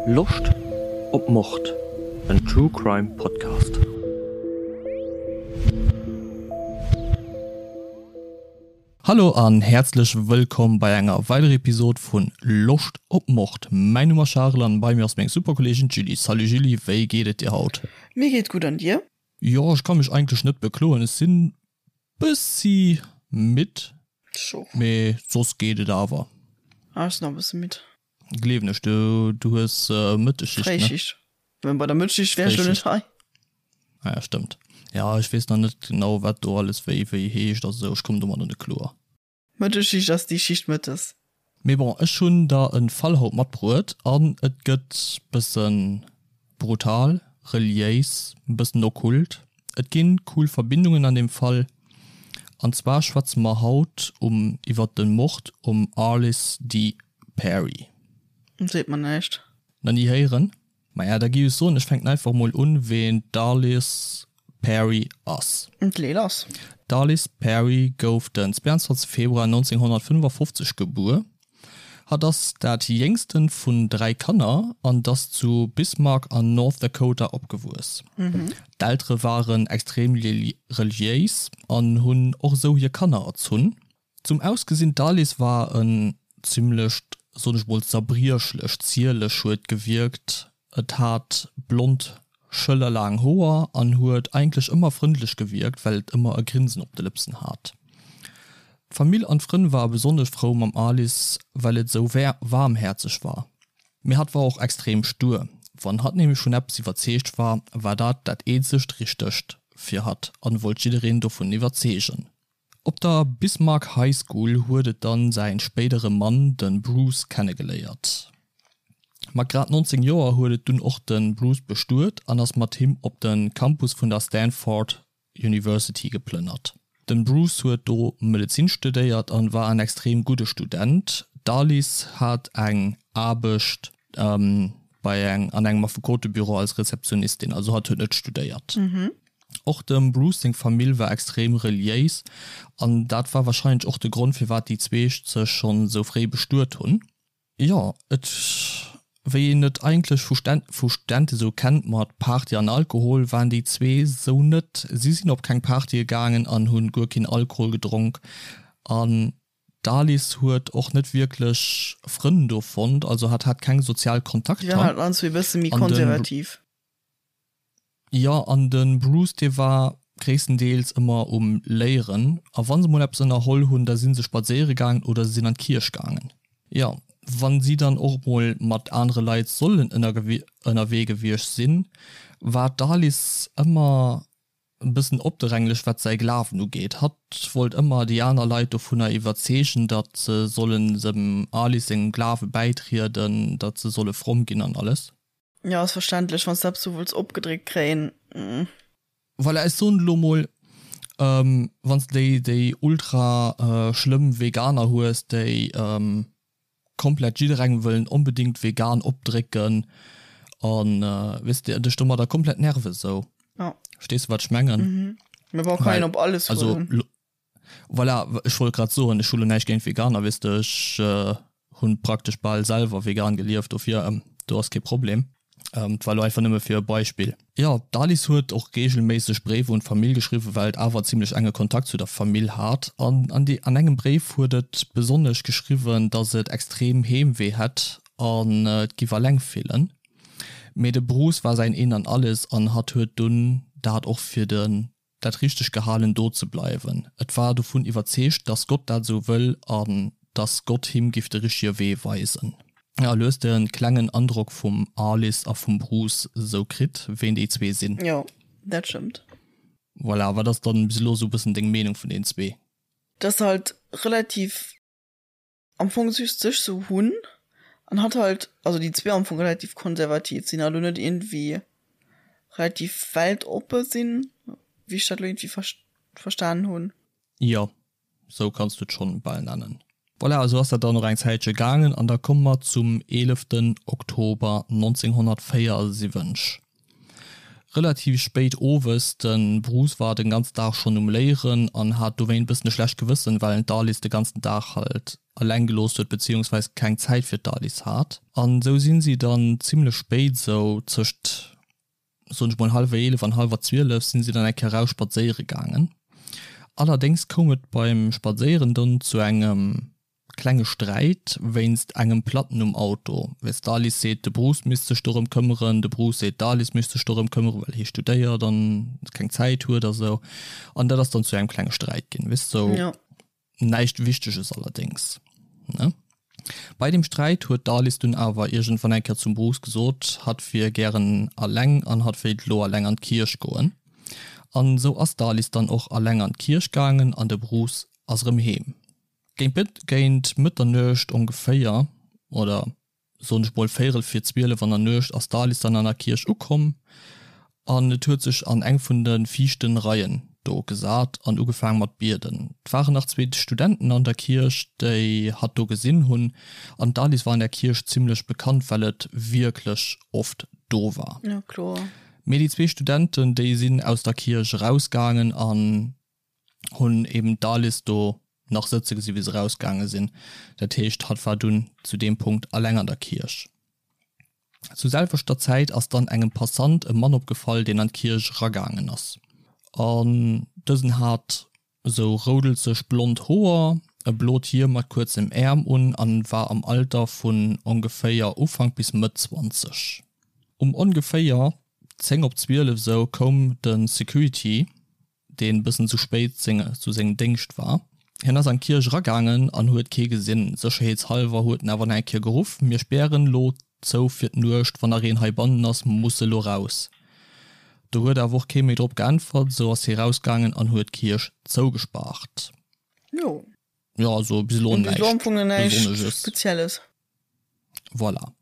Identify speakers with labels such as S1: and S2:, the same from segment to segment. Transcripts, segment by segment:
S1: Loscht op Mord? En True Crime Podcast. Hallo an häerzlech wëllkomm bei enger weiderer Episode vun Loscht op Mord. Mäin Numm ass Charel an bei mir ass meng super Kolleegin d'Julie. Salut Julie, wéi geet et dir haut?
S2: Mir geet gutt an dir?
S1: Jo, ech ka mech eigentlech net bekloen. Ech sinn bëssi midd, mee soss geet et awer.
S2: Ah, ech sinn och e bësse midd.
S1: Gleewen ech, du du hues Mëttesschicht, ne?
S2: Fréischicht. Mä bei der Mëttesschicht wär ech lo net hei.
S1: Ah ja, stëmmt. Ja, ech weess nach net genau, wat do alles wéi wéi heescht a sou. Ech kommen domadder net kloer.
S2: Mëttesschicht ass déi Schicht mëttes.
S1: Mee bon, ech hunn der en Fall haut matbruet an et gëtt bëssen brutal, reliéis, bëssen okkult. Et ginn cool Verbindungen an deem Fall. An zwar schwätze mer haut um iwwert den Mord um Arlis D. Perry.
S2: Seet mer näischt.
S1: Nach ni héieren? Maja, da gi ech soen, ech fänken einfach mol un, ween d'Arliss Perry ass.
S2: D'Lee lass.
S1: D'Arliss Perry gouf den 22 Februar 1955 gebuer. Hatt ass dat jéngsten vun 3 Kanner an ass zu Bismarck an North Dakota opgewuess. D'Eltere waren extrem reliéis an hunn och esou hir Kanner erzunn. Zum Ausgesinn, D'Alice war en zimlecht, soen ech mol, zerbriechlech, zierlech huet gewierkt. Et hat blond, schëllerlaang Hoer an huet eigentlech ëmmer frëndlech gewierkt, well et ëmmer e Grinsen op de Lëpsen hat. D'Famill an d'Frënn ware besonnesch frou mam Alice, well et esou waarmhäerzeg war. Mee hatt war och extrem stur. Wann hatt nämlech vun eppes iwwerzeegt war, war dat dat eenzegt Richtegt fir hatt an wollt jiddereen dovun iwwerzeegen. Op der Bismarck High School huet et dann säin spéidere Mann, den Bruce, kennegeléiert. Mat grad 19 Joer huet et dunn och den Bruce bestuet an ass mat him op den Campus vun der Stanford University geplënnert. Den Bruce huet do Medezin studéiert an war en extrem gudde Student. D'Alice hat eng Aarbecht bei eng an engem Affekotebüro als Rezeptionistin, also hatt huet net studéiert. Och dem Bruce seng Famill war extrem reliéis an dat war warscheinlech och de Grond firwat déi zweeg sech schonn sou fréi bestuet hunn. Jo, et wéi een et eigentlech vu vu Studente sou kennt mat Party an Alkohol, waren déi zwee sou net. Si sinn op keng Partye gaangen an hunn guer keen Alkohol gedronk an d'Alice huet och net wierklech Frënn do fonnt, also hat hat keng sozial
S2: Si waren
S1: Kontakter
S2: halt an zwee bësse méi
S1: an de.
S2: konservativ.
S1: Jo, an de Bruce dee war gréisstendeels ëmmer um Léieren, a wa se mol eppes ënnerholl hunn, da si se spadséiere gaangen oder se sinn an d'Kierch gaangen. Jo, wa si dann och mol mat anere Leit sollen ënnerwee gewiescht sinn, war d'Alice ëmmer e bëssen opdränglech wat säi Glawen ugeet. Hatt wollt ëmmer déi aner Leit dovunner iwwerzeegen, datt se sollen dem Alice sengem Glawe bäitrieden, datt se solle fromm ginn an alles.
S2: Jo, ass verständlech, wann s de eppes sou wëlls opgedréckt kréien.
S1: Voilà, ech soen elo mol, wann s de déi, déi ultra schlëmm Veganer hues, déi komplett jidderengem wëllen onbedingt vegan opdrécken an, weess de, dech domadder komplett nerven esou.
S2: Ja.
S1: Verstees de, wat ech mengen?
S2: Mee bon, kann een op alles
S1: huelen. Also, Voilà, ech wollt grad soen, ech hu lo näischt géint Veganer, weess de, ech hu praktesch bal selwer vegan gelieft, dofir do ass kee Problem. Et war lo einfach nëmme fir e Beispill. Jo, d'Alice huet och reegelméisseg Bréiwer un d'Famill geschriwwen, well et awer zimlech enge Kontakt zu der Famill hat. An an engem Bréif huet et besonnesch geschriwwen, datt et extrem Heemwee hätt an et giff alleng fillen. Mee de Bruce war säin Een an Alles an hatt huet dunn dat och fir de dat richteg gehalen do ze bleiwen. Et war dovun iwwerzeegt, dass Gott dat esou wëll an dass Gott him giff de richtege Wee weisen. A lo hues de en klengen Androck vum Alice a vum Bruce esou kritt, ween déi zwee sinn.
S2: Jo, dat stëmmt.
S1: Voilà, wat ass dann bis elo esou bëssen deng Meenung vun den zwee?
S2: Dass halt relativ am Fong just sech sou hunn an hatt halt, also déi zwee am Fong relativ konservativ sinn a lo net iergendwéi relativ weltoppe sinn, wéi ech dat lo iergendwéi verstanen hunn.
S1: Jo, sou kanns du et schonn bal nennen. Voilà, esou ass dat dann och eng Zäitche gaangen an da komme mer zum eeleften Oktober 1974. Relativ spéit owes, de Bruce war den ganzen Dag schonn um Léieren an hat dowéint bëssen e schlecht Gewëssen, well en d'Alice de ganzen Dag halt eleng gelooss huet beziehungsweis keng Zäit fir d'Alice hat. An sou sinn si dann zimlech spéit, sou tëscht soen ech mol hallwer 11 an hallwer 12 sinn si dann eng Kéier raus spadséiere gaangen. Allerdéngs koum et beim Spadséieren dann zu engem klenge Sträit wéinst engem Platten um Auto. Weess d'Alice seet de Bruce misst sech dorëm këmmeren, de Bruce seet d'Alice misst sech dorëm këmmeren, well hie studéiert an keng Zäit huet a sou. An dat ass dann zu engem klenge Sträit ginn, weess sou.
S2: Jo.
S1: Näischt Wichteges allerdéngs, ne? Bei deem Sträit huet d'Alice dunn awer iergendwann eng Kéier zum Bruce gesot, hatt wier gären alleng an hatt wéilt elo alleng an d'Kierch goen. An sou ass d'Alice dann och alleng an d'Kierch gaangen an de Bruce ass erëm heem. Géint Mëtternuecht ongeféier, oder soen ech mol véierel vir 12 an der Nuecht, ass d'Alice dann an der Kierch ukomm an et huet sech an eng vun de viischten Reien do gesat an ugefaang mat bieden. Et waren nach zweet Studenten an der Kierch, déi hatt do gesinn hunn an d'Alice war an der Kierch zimmlech bekannt, well et wierklech oft do war.
S2: Ja, kloer.
S1: Mee déi zwee Studenten, déi sinn aus der Kierch erausgaangen an hunn eben d'Alice do nach sëtze gesi wéi se rausgaange sinn. Dat heescht, hatt war dunn zu deem Punkt alleng an der Kierch. Zu selwechter Zäit ass dann engem Passant e Mann opgefall, deen an d'Kierch eragaangen ass. An dësen hat esou roudelzeg blond Hoer, e blot Hiem mat kuerzem Äerm un an war am Alter vun ongeféier Ufank bis Mëtt 20. Um ongeféier 10 op 12 esou koum de Security deen bëssen zu spéit zu sengem Déngscht war. Hien ass an d'Kierch eragaangen an huet kee gesinn. Sécherheetshallwer huet en awer nach eng Kéier geruff, Mir spären lo zou fir d'Nuecht, wann nach een heibannen ass, muss e lo raus. Do huet awer och kee méi drop geäntwert, sou ass hie rausgaangen an huet d'Kierch zougespaart.
S2: Jo.
S1: Jo, also bis elo
S2: näischt Besonnesches. Spezielles.
S1: Voilà.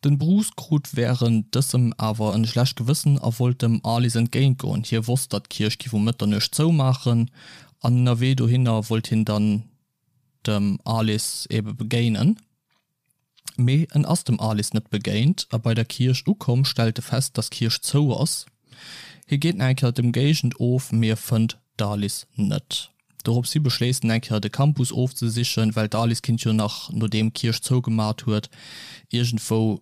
S1: Den Bruce krut während dësem awer en schlecht Gewëssen a wollt dem Alice entgéint goen. Hie wosst datt d'Kierch giff um Mëtternuecht zoumaachen an ënnerwee dohinner wollt hien dann dem Alice ebe begéinen. Mee en ass dem Alice net begéint a bei der Kierch ukomm stellt e fest datt d'Kierch zou ass. Hie geet nach eng Kéier d'Emgéigend of mee e fënnt d'Alice net. Doropshi beschléisst en eng Kéier de Campus ofzesichen, well d'Alice kinnt jo nach, nodeem d'Kierch zougemat huet, iergendwou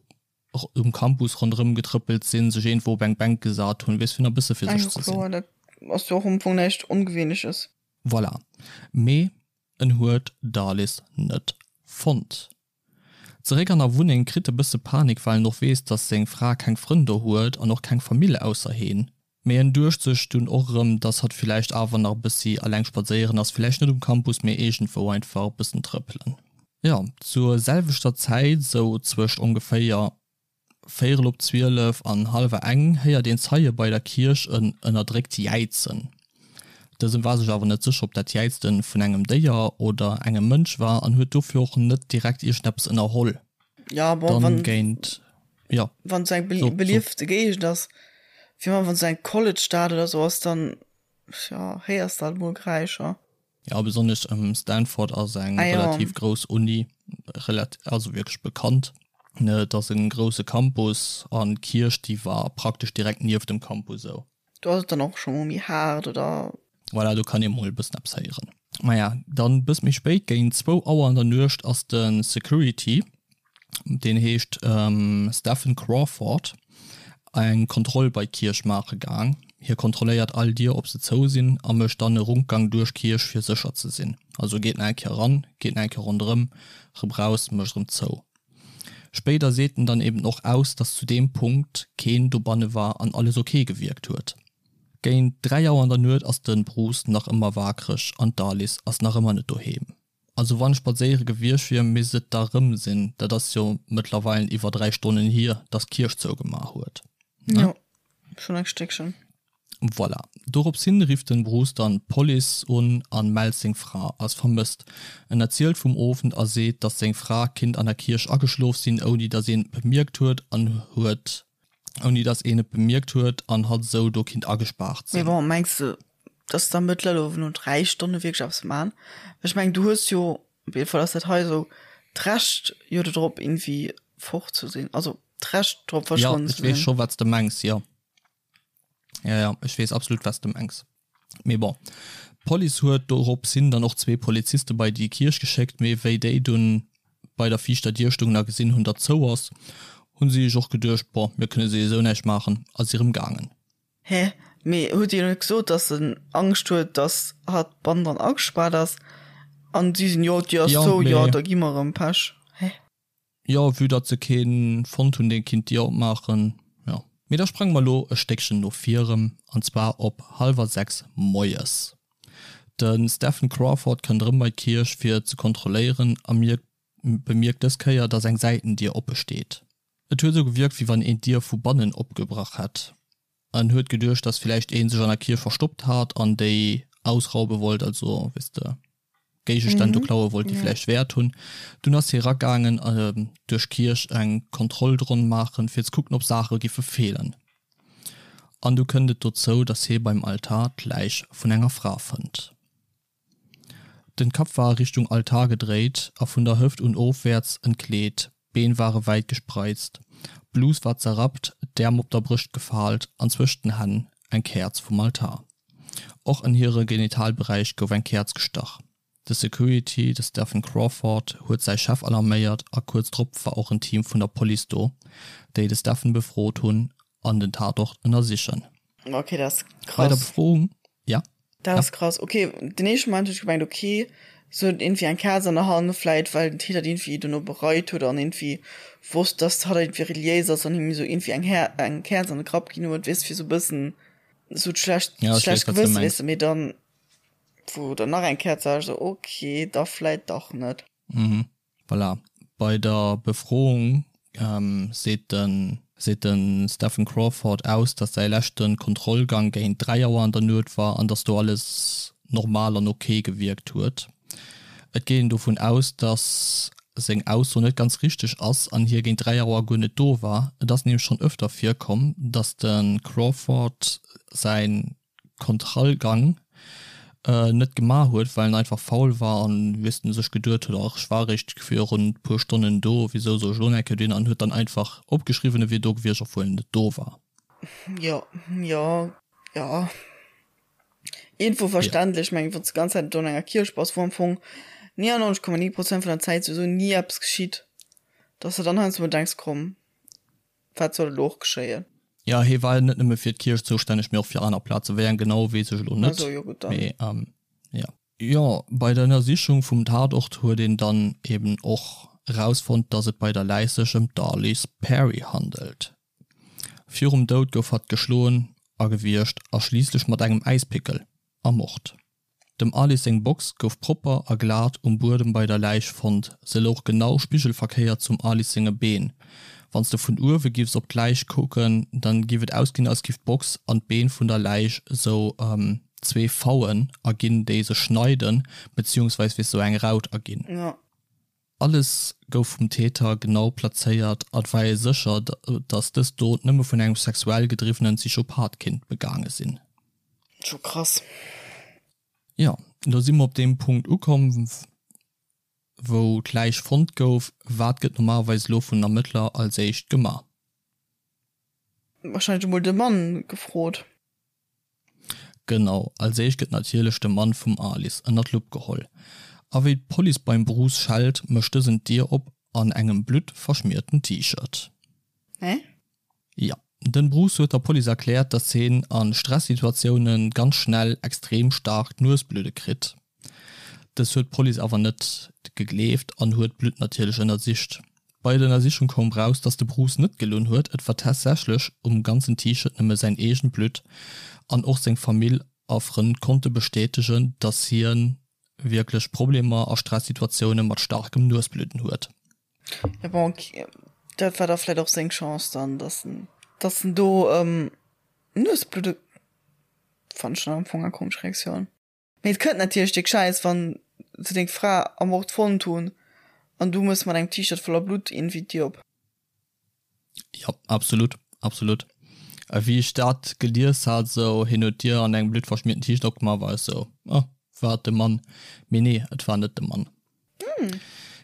S1: um Campus ronderëm getrëppelt sinn, sech iergendwou op eng Bänk gesat hunn, weess fir nach e bësse fir
S2: sech ze sinn. Dat ass jo och am Fong näischt Ongewéinleches.
S1: Voilà. Mee en huet d'Alice net fonnt. Zeréck an der Wunneng kritt e bësse Panik, well en och weess, dass seng Fra keng Frënn do huet an och keng Famill ausser heen. Mee en duecht sech dunn och erëm, dass hatt villäicht awer nach e bëssi alleng spadséieren ass, villäicht net um Campus, mee iergendwou einfach e bëssen trëppelen. Jo, zur selwechter Zäit, sou zwëscht ongeféier véierel op 12 an hallwer eng, héiert een Zeie bei der Kierch en ënnerdréckt Jäizen. Dësen war sech awer net sécher, ob dat Jäizten vun engem Déier oder engem Mënsch war an huet dofir och net direkt iergendeppes ënnerholl.
S2: Ja, bon,
S1: Dann
S2: wann,
S1: géint, ja,
S2: wann et sou eng
S1: so, so.
S2: beliefte Géigend ass, fir wann et sou eng College-Stad oder sou ass, dann, ja, héiers de halt mol Geräischer.
S1: Ja, besonnesch Stanford ass eng
S2: Ah ja.
S1: relativ grouss Uni, relat also wierklech bekannt. Ne, et ass en grousse Campus an d'Kierch, déi war praktesch direkt nieft dem Campus esou.
S2: Do ass et dann och scho mol méi haart, oder?
S1: Voilà, do kann ee mol e bëssen eppes héieren. Maja, dann bëss méi spéit, géint zwou Auer an der Nuecht, ass de Security, deen heescht Stephen Crawford, eng Kontroll bei d'Kierch maache gaang. Hie kontrolléiert all Dier, ob se zou sinn, a mécht dann e Rundgang duerch d'Kierch, fir sécher ze sinn. Also geet nach eng Kéier eran, geet nach eng Kéier ronderëm, rëm raus, mécht erëm zou. Spéider seet en dann eben och aus, dass zu deem Punkt keen dobanne war an alles ok gewierkt huet. Géint 3 Auer an der Nuet ass de Bruce nach ëmmer waakreg an d'Alice ass nach ëmmer net doheem. Also wann ech spadséiere gewiescht wier, misst et da rëm sinn. Dat ass jo mëttlerweilen iwwer 3 Stonnen hier, dass d'Kierch zougemaach huet,
S2: ne? Jo, schonn eng Stéckchen.
S1: Voilà. Dorops hin rifft den Bruce dann d'Police un an mellt seng Fra als vermësst. En erzielt vum Owend a seet, dass seng Fra kinnt an der Kierch ageschlof sinn, ouni dass een et bemierkt huet an huet ouni dass een et bemierkt huet an hatt esou do kinnt agespaart
S2: Mee
S1: sinn.
S2: bon, mengs de, dass d'Ermëttler elo no 3 Stonne wierklech eppes man? Well ech mengen, du hues jo, op jidde Fall ass dat hei esou, d'Recht jo dodrop irgendwie fort ze sinn, also d'Recht drop
S1: Jo,
S2: verschwonnen
S1: ech
S2: ze
S1: weess
S2: sinn.
S1: scho wat s de mengs, jo. Ja, ja, ech weess absolut, wat s de mengs. Mee bon, d'Police huet dorops hin dann och zwee Poliziste bei déi Kierch geschéckt, mee wéi déi dunn bei der viischter Dier stungen a gesinn hunn, datt zou ass, hunn si sech och geduecht, bon, mir kënne souwisou näischt maachen a si rëm gaangen.
S2: Hä? Mee huet hien net gesot, datt en Angscht huet, datt hatt bannendran agespaart ass? An si sinn, jo, d'Dier ass zou, jo, da gi mer erëm, Pech. Hä?
S1: Jo, vue datt se keen fonnt hunn deen kinnt d'Dier opmaachen, jo. Mee da sprange mer lo e Stéckchen no vir erëm, an zwar op hallwer 6 moies. De Stephen Crawford kënnt erëm bei d'Kierch fir ze kontrolléieren a mierkt bemierkt dës Kéier datt eng Säitendier oppe steet. Et huet esou gewierkt wéi wann een d'Dier vu bannen opgebrach hätt. En huet geduecht datt villäicht een sech an der Kierch verstoppt hat an déi ausraube wollt, also weess de. Géigestänn do klaue wollt, déi vläicht Wäert hunn. Dunn ass hie ragaangen duerch d'Kierch eng Kontrollronn maachen, fir ze kucken, ob Saache giffe feelen. An du kënnt et dozou, datt hie beim Altar d'Läich vun enger Fra fënnt. Den Kapp war Richtung Altar gedréit a vun der Hëft un ofwäerts entkleet, d'Been ware wäit gespreizt, d'Blus war zerrappt, d'Äerm op der Brëscht gefaalt an zwëscht den Hänn eng Käerz vum Altar. Och an hire Genitalberäich gouf eng Käerz gestach. De Security, de Stephen Crawford, huet säi Chef alarméiert a kuerz drop war och en Team vun der Police do, déi de Stephen befrot hunn an den Tatort ënnersichen.
S2: Ok, dat ass krass. Bei
S1: der Befroung, ja?
S2: Dat ass krass. Ok, den éischte Moment hunn ech gemengt, ok, se huet iergendwéi eng Käerz an der Hand, vläit well den Täter iergendwéi dono bereit huet an iergendwéi wosst, dass hatt iergendwéi reliéis ass an him esou iergendwéi eng Här eng Käerz an de Grapp ginn huet, weess, fir esou e bëssen esou d'schlecht
S1: Ja, ech
S2: schlecht
S1: weess, wat s de
S2: Gewësse,
S1: mengs.
S2: weess de, mee dann, wou dann nach eng Käerz war, ech esou, ok, da vläit dach net.
S1: Mhm. Voilà. Bei der Befroung seet de seet de Stephen Crawford aus, datt säi leschte Kontrollgang géint 3 Auer an der Nuet war an datt do alles normal an ok gewierkt huet. Et geet een dovun aus, datt seng Ausso net ganz richteg ass an hie géint 3 Auer guer net do war. Et ass nämlech schonn ëfter virkomm, datt de Crawford säi Kontrollgang net gemaach huet, well en einfach faul war an weess de sech geduet huet, ach ech war eréischt virun puer Stonnen do, wisou soll ech elo nach eng Kéier dohin an huet dann einfach opgeschriwwen e wier do gewiescht, obwuel en net do war.
S2: Jo, jo, jo. Iergendwou verständlech. Ech mengen, wann s de d'ganz Zäit do an enger Kierch bass, wou am Fong 99,9 Prozent vun der Zäit souwisou ni eppes geschitt, dass de dann heiansdo mol denks, komm, wat soll elo och geschéien?
S1: Jo, hie war net nëmme fir d'Kierch zoustänneg, mee och fir aner Plazen. Wéi eng genau, weess ech elo net.
S2: Also, jo gutt, dann.
S1: Mee jo. Jo, bei der Ënnersichung vum Tatort huet een dann eben och erausfonnt, dass et bei der Läich sech ëm d'Arliss Perry handelt. Virum Doud gouf hatt geschloen a gewiergt a schliisslech mat engem Äispickel ermort. Dem Alice seng Box gouf propper a glat um Buedem bei der Läich fonnt, se louch genau spigelverkéiert zum Alice senge Been. Wann s de vun uewe giffs op d'Läich kucken, dann giff et ausginn als giff d'Box an d'Been vun der Läich sou zwee V'en erginn déi sech schneiden, beziehungsweis weess sou eng Raut erginn. Alles gouf vum Täter genau plazéiert a et war ee sécher, datt dës Dot nëmme vun engem sexuell gedriwwenen Psychopath kinnt begaange sinn.
S2: Scho krass.
S1: Jo, elo si mer op deem Punkt ukomm, wou d'Läich fonnt gouf. Wat gëtt normalerweis elo vun den Ermëttler als éischt gemaach?
S2: Wahrscheinlech emol de Mann gefrot.
S1: Genau, als éischt gëtt natierlech de Mann vum Alice ënner d'Lupp geholl. A wéi d'Police beim Bruce schellt, mécht dësen d'Dier op an engem bluttverschmierten T-Shirt.
S2: Hä?
S1: Jo, den Bruce huet der Police erkläert, dass hien a Stressituatioune ganz schnell extrem staark d'Nuesbludde kritt. Dës huet d'Police awer net gegleeft an huet d'Blutt natierlech ënnersicht. Bei der Ënnersichung koum raus, dass de Bruce net gelunn huet, et war tatsächlech um ganzen T-Shirt nëmme säin eegent Blutt an och seng Famill a Frënn konnte bestätegen, dass hien wierklech Problemer a Stressituatioune mat staarkem Nuesbludden huet.
S2: Ja bon, dat war da vläit och seng Chance dann, dass en, dass en do Nuesbludde, fannen ech schon am Fong eng komesch Reaktioun. Mee et kënnt natierlech déck schäiss wann se deng Fra ermort fonnt hunn an du mëss mat engem T-Shirt voller Blutt iergendwéi d'Dier op.
S1: Jo, absolut, absolut. A wéi ech dat gelies hat, esou hien huet d'Dier an engem bluttverschmierten T-Shirt opgemaach, war ech esou, oh, war et de Mann? Mee nee, et war net de Mann.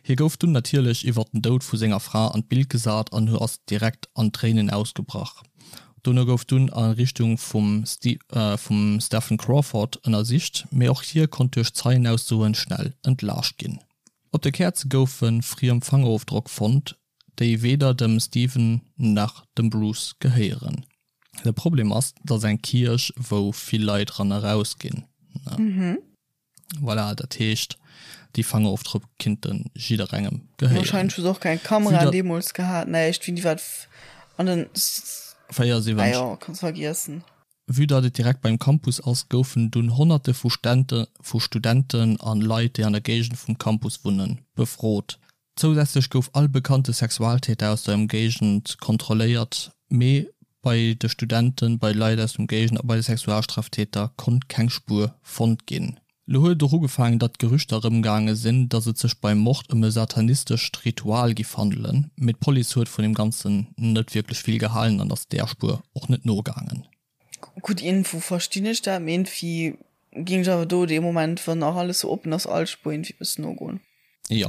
S1: Hie gouf dunn natierlech iwwert den Doud vu senger Fra an d'Bild gesat an ass direkt an Tréinen ausgebrach. Dono gouf dunn a Richtung vum vum Stephen Crawford ënnersicht, mee och hie konnt duerch Zeienaussoen schnell entlaascht ginn. Op de Käerze goufe friem Fangerofdrock fonnt, déi weder dem Stephen nach dem Bruce gehéieren. De Problem ass, et ass eng Kierch wou vill Leit ran a raus ginn. Voilà, dat heescht déi Fangerofdrock kinnte jidderengem
S2: gehéieren. Wahrscheinlech hu se och keng Kameraen deemools gehat, näischt, wéini war dat an den
S1: 74. Ah
S2: jo, kanns vergiessen.
S1: Vue datt et direkt beim Campus ass, goufen dunn Honnerte vu vu Studenten an Leit, déi an der Géigend vum Campus wunnen, befrot. Zousätzlech gouf all bekannte Sexualtäter aus der Ëmgéigend kontrolléiert, mee bei de Studenten, bei Leit aus dem Géigend a bei de Sexualstraftäter konnt keng Spuer fonnt ginn. Lo huet et och ugefaangen, datt Gerüchter erëmgaange sinn, datt et sech beim Mord ëm e satanistescht Ritual giff handelen, mee d'Police huet vun deem Ganzen net wierklech vill gehalen an ass där Spuer och net nogaangen.
S2: Gutt Info, verstinn ech dat, mee iergendwéi géing ech awer do dee Moment, wann nach alles sou oppen ass, all Spuer iergendwéi bëssen nogoen.
S1: Jo,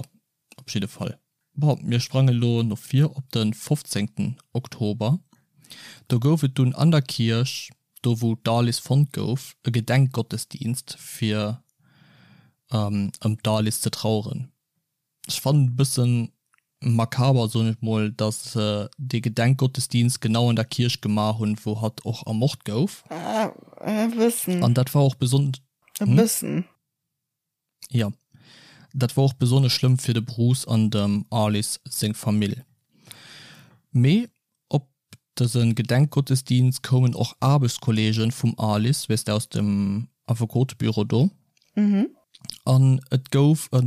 S1: op jidde Fall. Bon, mir sprange lo no vir op de 15 Oktober. Do gouf et dunn an der Kierch, do wou d'Alice fonnt gouf, e Gedenkgottesdienst fir ëm d'Alice ze traueren. Ech fannen e bëssen makaber, soen ech mol, dass se dee Gedenkgottesdienst genau an der Kierch gemaach hunn, wou hatt och ermort gouf.
S2: E bëssen.
S1: An dat war och besonnesch.
S2: E bëssen.
S1: Jo, dat wor och besonnesch schlëmm fir de Bruce an dem Arliss seng Famill. Mee op dëse Gedenkgottesdienst koumen och Aarbechtskolleegen vum Arliss, weess de, aus dem Affekotebüro do. An et gouf e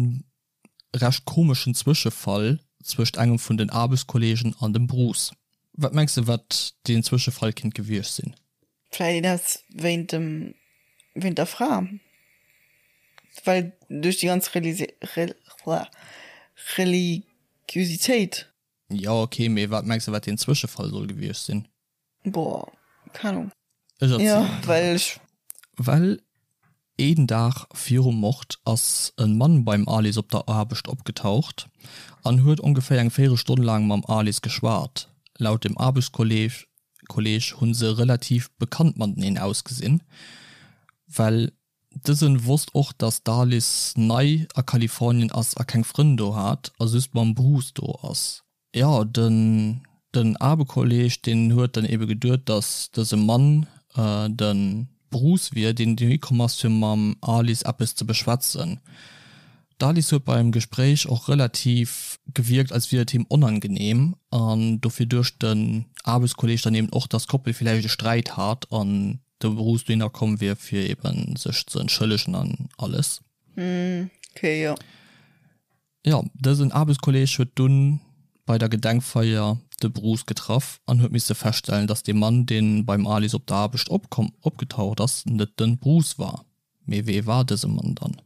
S1: recht komeschen Zwëschefall zwëscht engem vun den Aarbechtskolleegen an dem Bruce. Wat mengs de, wat deen Zwëschefall kinnt gewiescht sinn?
S2: Vläit een aus wéint dem, wéint der Fra, well duerch déi ganz Religiositéit.
S1: Jo ok, mee wat mengs de wat deen Zwëschefall soll gewiescht sinn?
S2: Boah, keng Ahnung.
S1: Ech erzielen
S2: Jo, well ech.
S1: Well een Dag virum Mord ass e Mann beim Alice op der Aarbecht opgetaucht an huet ongeféier eng Véierelstonn laang mam Alice geschwat. Laut dem Aarbechtskolleeg Kolleg hunn se relativ bekannt mateneen ausgesinn, well dësen wosst och dass d'Alice nei a Kalifornien ass a keng Frënn do hat a just mam Bruce do ass. Jo, den den Aarbekolleg deen huet dann ebe geduet dass dëse Mann de Bruce wier, deen dohi komm ass fir mam Alice eppes ze beschwätzen. D'Alice huet beim Gespréich och relativ gewierkt, als wier et him onangenehm an dofir duecht den Aarbechtskolleg dann eben och, dass d'Koppel villäicht e Sträit hat an de Bruce dohinner komm wier, fir eben sech ze entschëllegen an alles.
S2: Okay, jo.
S1: Jo, dësen Aarbechtskolleg huet dunn bei der Gedenkfeier de Bruce getraff an huet misse feststellen, dass dee Mann, deen beim Alice op der Aarbecht opgetaucht ass, net de Bruce war. Mee wee war dëse Mann dann?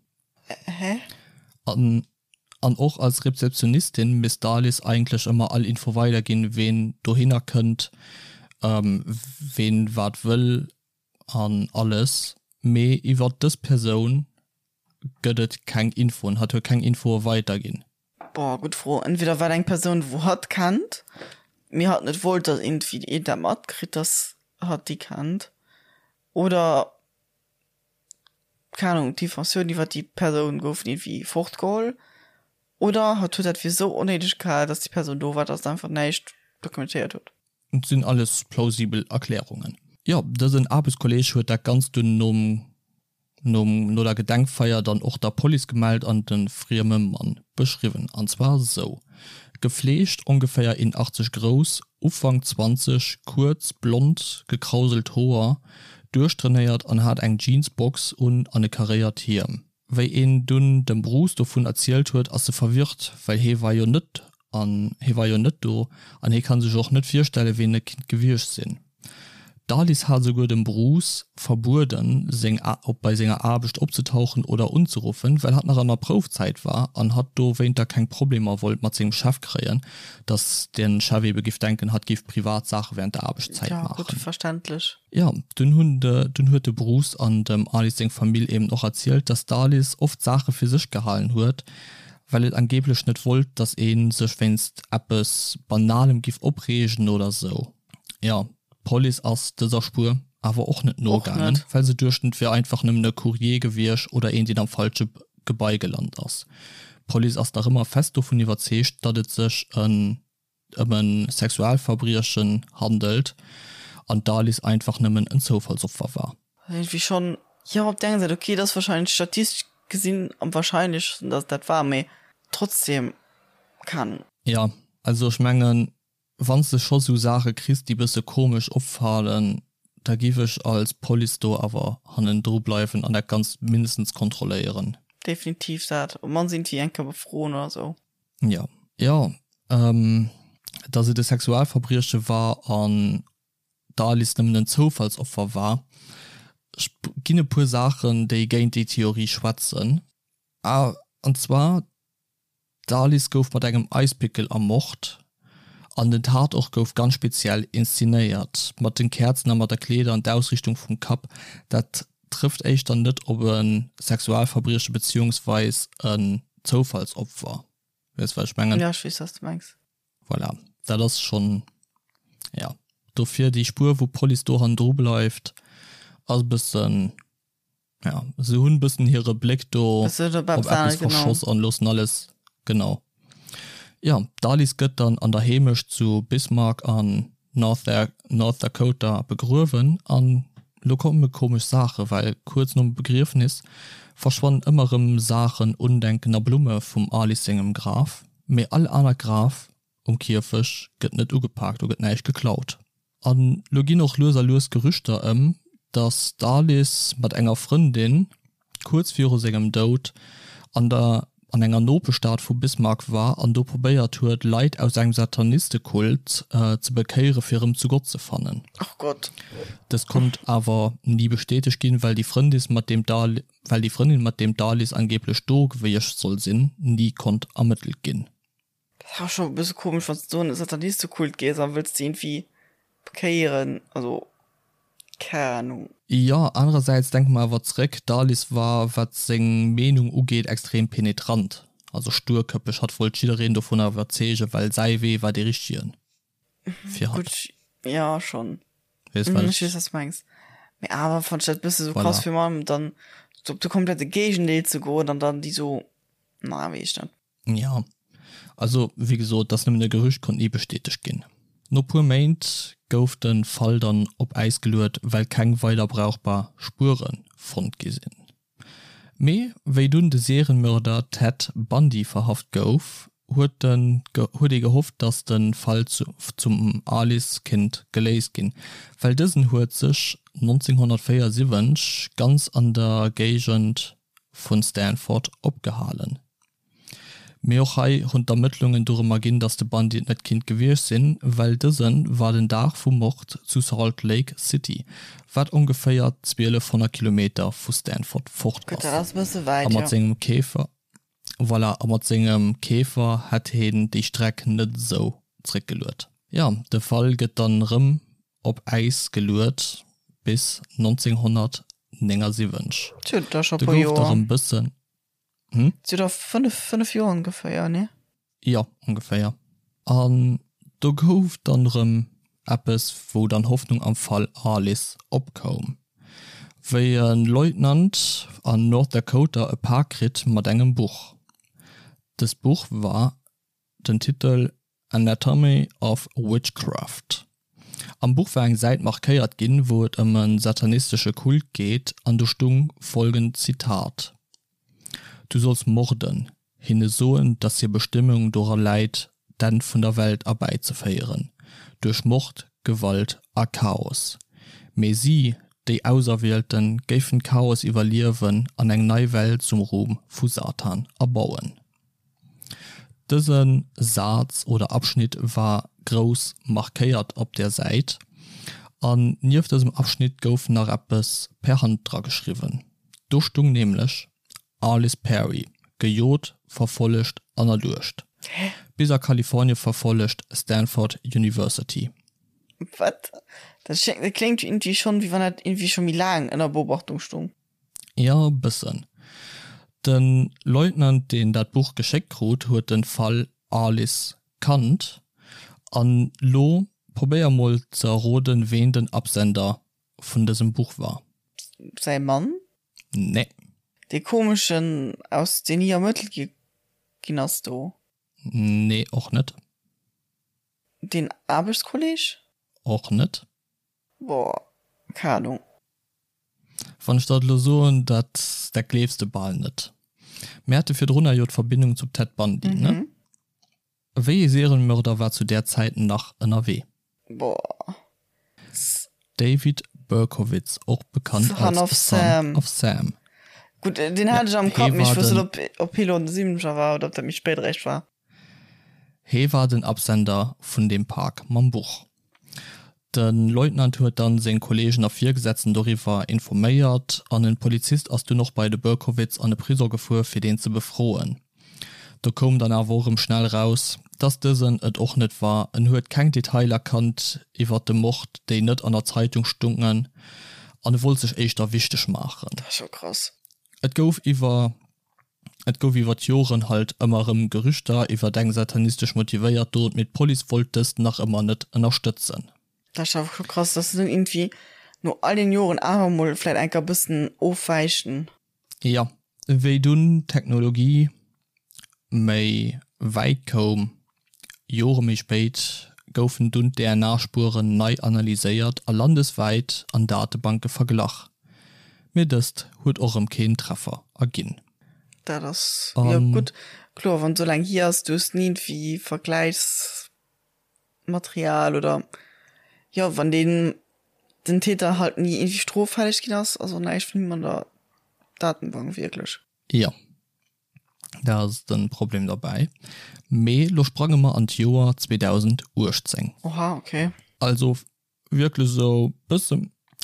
S2: Hä?
S1: An an och als Rezeptionistin misst d'Alice eigentlech ëmmer all Info weiderginn, ween dohinner kënnt, ween wat wëll an alles, mee iwwert dës Persoun gëtt et keng Infoen, hatt huet keng Infoe weiderginn.
S2: Boah, gutt Fro. Entweder war et eng Persoun, wou hatt kennt, mee hatt net wollt, datt iergendwéi een dat matkritt, datt hatt déi kennt, oder keng Ahnung, d'Informatioun iwwer déi Persoun goufen iergendwéi fortgeholl oder hatt huet dat fir esou onnéideg gehal, dass déi Persoun do war, dass en einfach näischt dokumentéiert huet.
S1: Et sinn alles plausibel Erklärungen. Jo, dësen Aarbechtskolleg huet dat Ganzt dunn nom nom no der Gedenkfeier dann och der Police gemellt an de frieme Mann beschriwwen. An zwar sou, Gefleegt, ongeféier 1,80 grouss, Ufank 20, kuerz, blond, gekrauselt Hoer, duerchtrainéiert an hat eng Jeansbox un an e karéiert Hiem. Wéi een dunn dem Bruce dovun erzielt huet, ass e verwirrt, well hee war jo net an hee war jo net do an hee kann sech och net virstelle ween et kinnt gewiescht sinn. D'Alice hat esouguer dem Bruce verbueden, seng op bei senger Aarbecht opzetauchen oder unzeruffen, well hatt nach an der Proufzäit war an hatt dowéinter keng Problemer wollt mat sengem Chef kréien, dass den Chef ebe giff denken, hatt giff privat Saache während der Aarbechtszäit
S2: Ja, gutt,
S1: maachen.
S2: verständlech.
S1: Jo, dunn hunn de dunn huet de Bruce an dem Alice seng Famill eben och erzielt, dass d'Alice oft Saache fir sech gehalen huet, well et angeblech net wollt, dass ee sech wéinst eppes Banalem giff opreegen oder sou. Jo. D'Police ass dëser Spuer awer och net nogaangen, well se duechten, et wier einfach nëmmen e Courrier gewiescht oder een, deen am falsche Gebai gelant ass. D'Police ass nach ëmmer fest dovun iwwerzeegt, datt et sech ëm e Sexualverbriechen handelt an d'Alice einfach nëmmen en Zoufallsopfer war.
S2: Iergendwéi schonn, jo, op der enger Säit, okay, et ass warscheinlech statistesch gesinn am warscheinlechsten, datt et dat war, mee trotzdem, keng Ahnung.
S1: Jo, also ech mengen, Wann s de scho sou Saache kriss, déi bësse komesch opfalen, da giff ech als Police do awer hannendru bleiwen an dat Ganzt mindestens kontrolléieren.
S2: Definitiv dat. Op mannst iergendwéi eng Kéier befroen oder sou.
S1: Jo. Jo, dass et e Sexualverbrieche war an d'Alice nëmmen en Zoufallsopfer war. Ech ginn e puer Saachen, déi géint déi Theorie schwätzen. An zwar D'Alice gouf mat engem Eispickel ermort an den Tatort gouf ganz speziell inszenéiert, mat den Käerzen a mat der Kleeder an d'Ausriichtung vum Kapp. Dat trëfft éischter net op e Sexualverbrieche beziehungsweis en Zoufallsopfer. Weess wat ech mengen?
S2: Jo, ech weess wat s de mengs.
S1: Voilà, dat ass schonn, jo. Dofir déi Spuer wou d'Police do hannendru bleift ass e bëssen. Ja, se hunn bëssen hire Bléck do op eppes verschoss an loossen alles, genau. Jo, d'Alice gëtt dann an der Heemecht zu Bismarck an North North Dakota begruewen an lo komme komesch Saache well kuerz nom Begriefnis verschwannen ëmmer rëm Saachen, Undenken a Blumme vum Alice sengem Graf, mee all anert Graf um Kierfech gëtt net ugepaakt, do gëtt näischt geklaut. An lo ginn och lues a lues Gerüchter ëm, datt d'Alice mat enger Frëndin kuerz viru sengem Doud an der an enger Nopeschstad vu Bismarck war an do probéiert huet, Leit aus engem Satanistekult ze bekéiere fir erëm zu Gott ze fannen.
S2: Ach Gott.
S1: Dëst konnt awer ni bestätegt ginn, well déi Frëndis mat deem well déi Frëndin mat deem d'Alice angeeblech do gewiescht soll sinn, ni konnt ermëttelt ginn.
S2: Dat ass awer scho e bësse komesch, wann s de do an e Satanistekult gees a wëlls déi iergendwéi bekéieren. Also, keng Ahnung.
S1: Jo, anerersäits denke mer awer zréck, d'Alice war, wat seng Meenung ugeet, extrem penetrant, also sturköppeg. Hatt wollt jiddereen dovunner iwwerzeegen, well säi Wee war dee richtegen fir hatt.
S2: Gutt, jo, schonn. Weess, wat ech. Ech weess, wat s de mengs. Mee awer fannt ech dat e bësse sou krass, fir mol dann op de komplette Géigendeel ze goen an dann déi sou, na, weess ech net.
S1: Jo, also wéi gesot, et ass nëmmen e Gerücht, konnt ni bestätegt ginn. No puer Méint gouf de Fall dann op Äis geluet, well keng weider brauchbar Spuere fonnt gi sinn. Mee wéi dunn de Serienmörder Ted Bundy verhaft gouf, huet huet ee gehofft, datt de Fall zum Alice kinnt geléist ginn, well dësen huet sech 1974 ganz an der Géigend vu Stanford opgehalen. Mee och hei hunn d'Ermëttlungen dorëm erginn, datt de Bundy et net kinnt gewiescht sinn, well dëse war den Dag vum Mord zu Salt Lake City, wat ongeféier 1200 Kilometer vu Stanford fort
S2: ass. A
S1: mat sengem Käfer, voilà, a mat sengem Käfer hätt heen déi Streck net esou zréckgeluet. Jo, de Fall gëtt dann erëm op Äis geluet bis 1979.
S2: Do gouf et
S1: erëm bëssen.
S2: Hm? Zu der 5, 5 Joer ongeféier, nee?
S1: Jo, ongeféier. An do gouf dann erëm eppes, wou dann Hoffnung am Fall Alice opkoum, wéi e Leutnant an North Dakota e Pak kritt mat engem Buch. Dëst Buch war den Titel Anatomy of Witchcraft. Am Buch war eng Säit markéiert ginn, wou et ëm e satanistesche Kult geet an do stung folgend Zitat, Du solls morden, hinne soen, dass hir Bestëmmung dora läit, d'Enn vun der Welt erbäizeféieren, duerch Mord, Gewalt a Chaos. Mee si, déi Auserwielten, géifen d'Chaos iwwerliewen an eng nei Welt zum Ruhm vu Satan erbauen. Dëse Saz oder Abschnitt war grouss markéiert op der Säit, an nieft dësem Abschnitt gouf nach eppes per Hand dra geschriwwen. Do stung nämlech, Arliss Perry, gejot, verfollegt an erduecht. Bis a Kalifornie verfollegt, Stanford University.
S2: Wat? Dat kléngt iergendwéi schonn, wéi wann dat iergendwéi scho méi laang ënner Beobachtung stung.
S1: Jo, e bëssen. De Leutnant, deen dat Buch geschéckt krut, huet de Fall Alice kannt an lo Probéier mol ze erroden, ween den Absender vun dësem Buch war.
S2: Säi Mann?
S1: Nee.
S2: Dee komeschen aus deen ni ermëttelt gi ginn ass do?
S1: Nee, och net.
S2: Deen Aarbechtskolleg?
S1: Och net.
S2: Boah, keng Ahnung.
S1: Wann ech der et elo soen, dat dat gleefs de bal net. Mir hate virdrunner jo d'Verbindung zum Ted Bundy, ne? Wéi ee Serienmörder war zu där Zäit nach ënnerwee?
S2: Boah.
S1: David Berkowitz, och bekannt
S2: Son
S1: als
S2: of
S1: Son
S2: Sam.
S1: of Sam.
S2: Gutt, deen
S1: Ja,
S2: hat ech am
S1: hee
S2: Kapp, mee ech
S1: war
S2: wousst
S1: den.
S2: net, ob, ob hie lo an de Siwwenzeger war oder ob dat méi spéit eréischt war.
S1: Hee war den Absender vun deem Pak mam Buch. De Leutnant huet dann seng Kollegen a Virgesetzten doriwwer informéiert an en Polizist ass dunn och bei de Berkowitz an de Prisong gefuer fir deen ze befroen. Do koum dann awer och erëm schnell raus, dass dësen et och net war, en huet keng Detailer kannt iwwert de Mord, déi net an der Zeitung stungen an e wollt sech éischter wichteg maachen.
S2: Dat ass jo krass.
S1: Et gouf iwwer Et gouf iwwer d'Joren halt ëmmer erëm Gerüchter iwwert eng satanistesch motivéiert Dot, mee d'Police wollt dëst nach ëmmer net ënnerstëtzen.
S2: Dat ass awer scho krass, dass se dann iergendwéi no all den Joren awer mol vläit enker e bëssen ofwäichen.
S1: Jo, wéi dunn d'Technologie méi wäit koum, Jore méi spéit, goufen dunn d'DNA-Spueren nei analyséiert a landeswäit an Datebanke verglach, mee dëst huet och erëm keen Treffer erginn.
S2: Dat ass jo gutt, kloer, wann et esou laang hier ass, du hues ni iergendwéi Vergläichsmaterial oder jo, wann deen den Täter halt ni iergendwéi stroffälleg ginn ass, ass och näischt vun him an der Datenbank wierklech.
S1: Jo. Dat ass den Problem derbäi. Mee lo sprange mer an d'Joer 2018.
S2: Oha, okay.
S1: Also wierklech esou bësse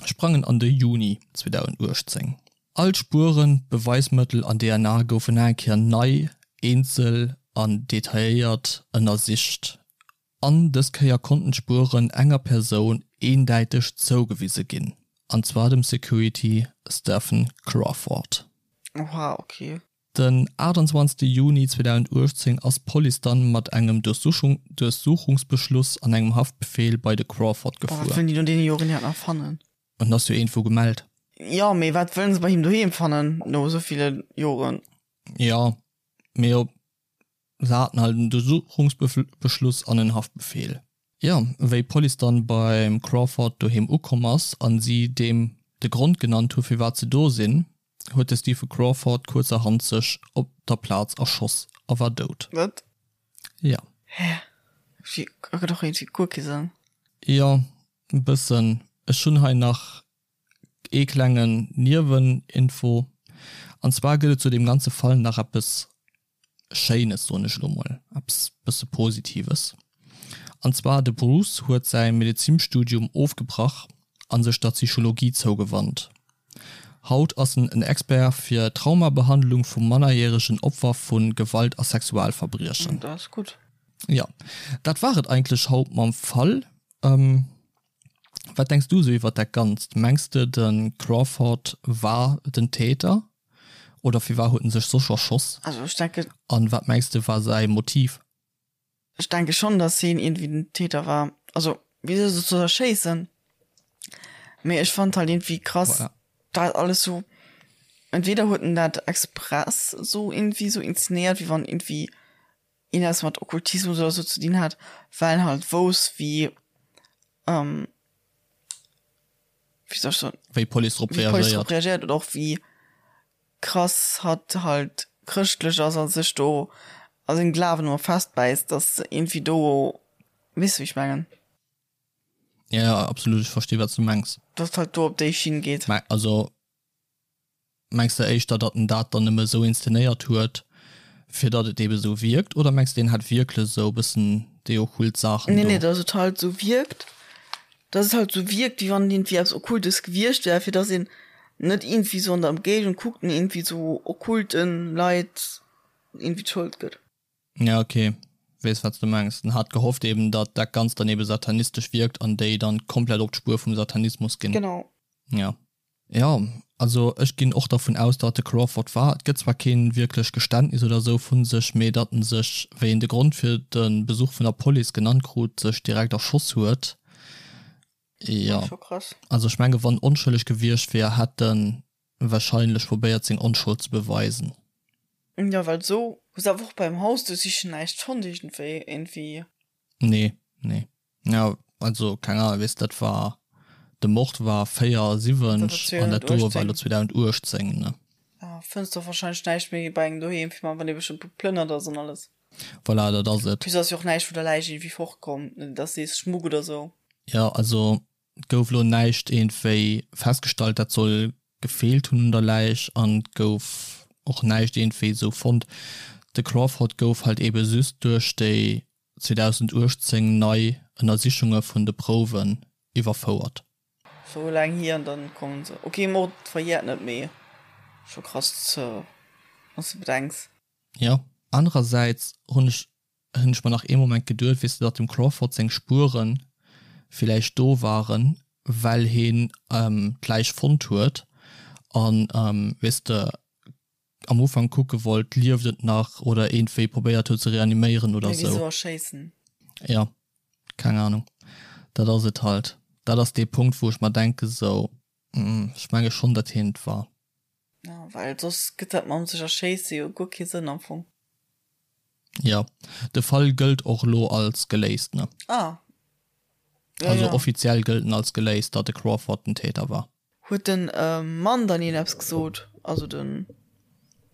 S1: sprangen an de Juni 2018. All d'Spueren, d'Beweismëttel an DNA goufen nach eng Kéier nei, eenzel an detailléiert ënnersicht. An dës Kéier konnten d'Spueren enger Persoun eendäiteg zougewise ginn, an zwar dem Security Stephen Crawford.
S2: Oha, ok.
S1: Den 28 Juni 2018 ass d'Police dann mat engem Duerchsuchungsbeschluss an engem Haftbefeel bei de Crawford
S2: Boah, wat
S1: gefuer.
S2: wëllen déi no deene Joren iwwerhaapt nach fannen?
S1: En ass jo iergendwou gemellt.
S2: Jo, mee wat wëllen se bei him doheem fannen no esou ville Joren?
S1: Jo, mee op Se haten halt en Durchsuchungsbeschluss an en Haftbefeel. Jo, wéi d'Police dann beim Crawford doheem ukomm ass an si deem de Grond genannt hu firwat se do sinn, huet de Stephen Crawford kuerzerhand sech op der Plaz erschoss a war dout.
S2: Wat?
S1: Jo.
S2: Hä? Wéi? Ergëtt och iergendwéi guer kee Sënn.
S1: Jo, e bëssen. Ech hunn hei nach Ee klengen Nieweninfo, an zwar gëtt et zu deem ganze Fall nach eppes Schéines, soen ech elo mol, eppes bësse Positives, an zwar de Bruce huet säi Medezinstudium ofgebrach a sech der Psychologie zougewannt. Haut ass en en Expert fir Traumabehandlung vu mannerjäregen Opfer vu Gewalt a Sexualverbriechen.
S2: Dat ass gutt.
S1: Jo, dat war et eigentlech haut mam Fall. Wat denks du sou iwwert dat Ganzt? Mengs de de Crawford war den Täter oder firwar huet en sech soss erschoss?
S2: Also ech denken.
S1: An wat mengs de war säi Motiv?
S2: Ech denke schonn dass hien iergendwéi den Täter war. Also wisou soss soll er schéissen? Mee ech fand halt iergendwéi krass
S1: Voilà.
S2: dat alles sou, entweder huet en dat express sou iergendwéi sou inzenéiert wéi wann iergendwéi een eppes mat Okkultismus oder sou ze dinn hat, well en halt wousst wéi, wéi soll ech soen,
S1: Wéi d'Police drop
S2: wéi d'Police drop
S1: reagéiert.
S2: reagéiert oder och wéi krass hatt halt chrëschtlech ass a sech do a sengem Glawen ëmmer festbäisst, dass iergendwéi do, weess de wéi ech mengen?
S1: Ja, ja, absolut, ech versti wat s du mengs.
S2: Dass et halt do op déi Schinn geet.
S1: Mä also Mengs de éischter, datt en dat dann nëmme esou inszenéiert huet, fir datt et ebe esou wierkt, oder mengs de, en hätt wierklech esou e bëssen déi okkult Saachen
S2: Nee,
S1: do?
S2: nee, datt et halt esou wierkt, datt et halt esou wierkt, wéi wann et iergendwéi eppes Okkultes gewiescht wär, fir datt een net iergendwéi esou an der Ëmgéigend kuckt an iergendwéi esou okkulten Leit iergendwéi d'Schold gëtt.
S1: Ja, ok, weess wat s de mengs. En hat gehofft eben, datt dat Ganzt dann ebe satanistesch wierkt an déi dann komplett op d'Spuer vum Satanismus ginn.
S2: Genau.
S1: Ja. Jo, also ech ginn och dervun aus, datt de Crawford war. Et gëtt zwar keen wierklech Geständnis oder sou vu sech, mee datt en sech, wéi en de Grond fir de Besuch vun der Police genannt krut, sech direkt erschoss huet. Jo.
S2: Scho krass.
S1: Also ech menge wann onschëlleg gewiescht wier, hätt en wahrscheinlech probéiert seng Onschold ze beweisen.
S2: Jo, well sou hu se awer och beim Haus duerchsichen näischt fonnt iergendwéi, iergendwéi.
S1: Nee, nee. Jo, also keng Ahnung, weess dat war, de Mord war 74 an dat doe war elo 2018, ne?
S2: Ja, fënns de och wahrscheinlech näischt méi bei engem doheem, fir wann ee bëssche geplënnert ass an alles.
S1: Voilà, dat ass et.
S2: Plus ass jo och näischt vun der Läich iergendwéi fortkomm, dass sees Schmuck oder sou.
S1: Jo, also et gouf elo näischt iergendwéi festgestallt, dat soll gefeelt hunn un der Läich an et gouf och näischt iergendwéi esou fonnt. De Crawford gouf halt eebe just duerch déi 2018 nei Ënnersichunge vun de Prouwen iwwerfouert.
S2: Sou laang hier an dann kommen se. Ok, Mord verjährt net, mee scho krass ze wanns de bedenks.
S1: Jo, anerersäits hunn ech hunn ech mer nach ee Moment geduet, weess de, datt dem Crawford seng Spuere villäicht do waren, well heen d'Läich fonnt huet an, weess de, am Ufank kucke wollt, lieft et nach oder iergendwéi probéiert huet ze reaniméieren oder
S2: Mee
S1: sou.
S2: wisou erschéissen?
S1: Jo, keng Ahnung. Dat ass et halt. Dat ass dee Punkt, wou ech mer denke sou, ech menge schonn, datt heen et war.
S2: Ja, well soss gëtt dat mam sech erschéisse jo guer kee Sënn am Fong.
S1: Jo, de Fall gëllt och elo als geléist, ne?
S2: Ah.
S1: Ja, also ja. Offiziell gëllt en als geléist, datt de Crawford den Täter war.
S2: Huet den Mann dann iergend eppes gesot? Also den,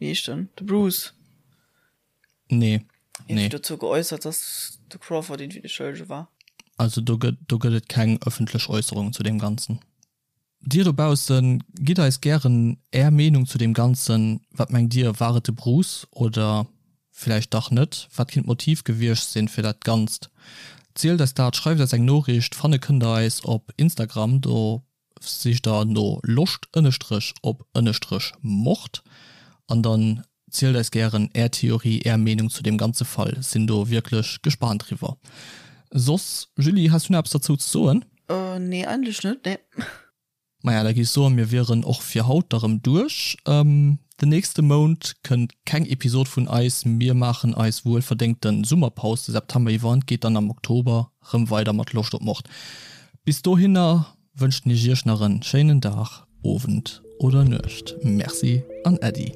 S2: wéi heescht en, de Bruce?
S1: Nee,
S2: nee. Iergendwéi dozou geäussert, datt de Crawford iergendwéi de Schëllege war?
S1: Also do gëtt, do gëtt et keng ëffentlech Äusserungen zu deem Ganzen. Dir dobaussen, gitt eis gären är Meenung zu deem Ganzen. Wat mengt dir, war et de Bruce oder villäicht dach net? Wat kinnt d'Motiv gewiescht sinn fir dat Ganzt? Zielt eis dat, schreift eis eng Noriicht. Fanne kënnt der eis op Instagram, do sicht der no Loscht ënnestrech op ënnestrech Mord an dann zielt eis gären är Theorie, är Meenung zu deem ganze Fall. Sinn do wierklech gespaant driwwer. Soss, Julie, has du nach eppes derzou ze soen?
S2: Nee, eigentlech net, nee.
S1: Maja, da géif ech soen, mir wieren och fir haut da rëm duerch. Den nächste Mount kënnt keng Episod vun eis. Mir maachen eis wuelverdéngte Summerpaus de September iwwer an et geet dann am Oktober rëm weider mat Loscht op Mord. Bis dohinner wënschen ech iech nach en schéinen Dag, Owend oder Nuecht. Merci an Äddi.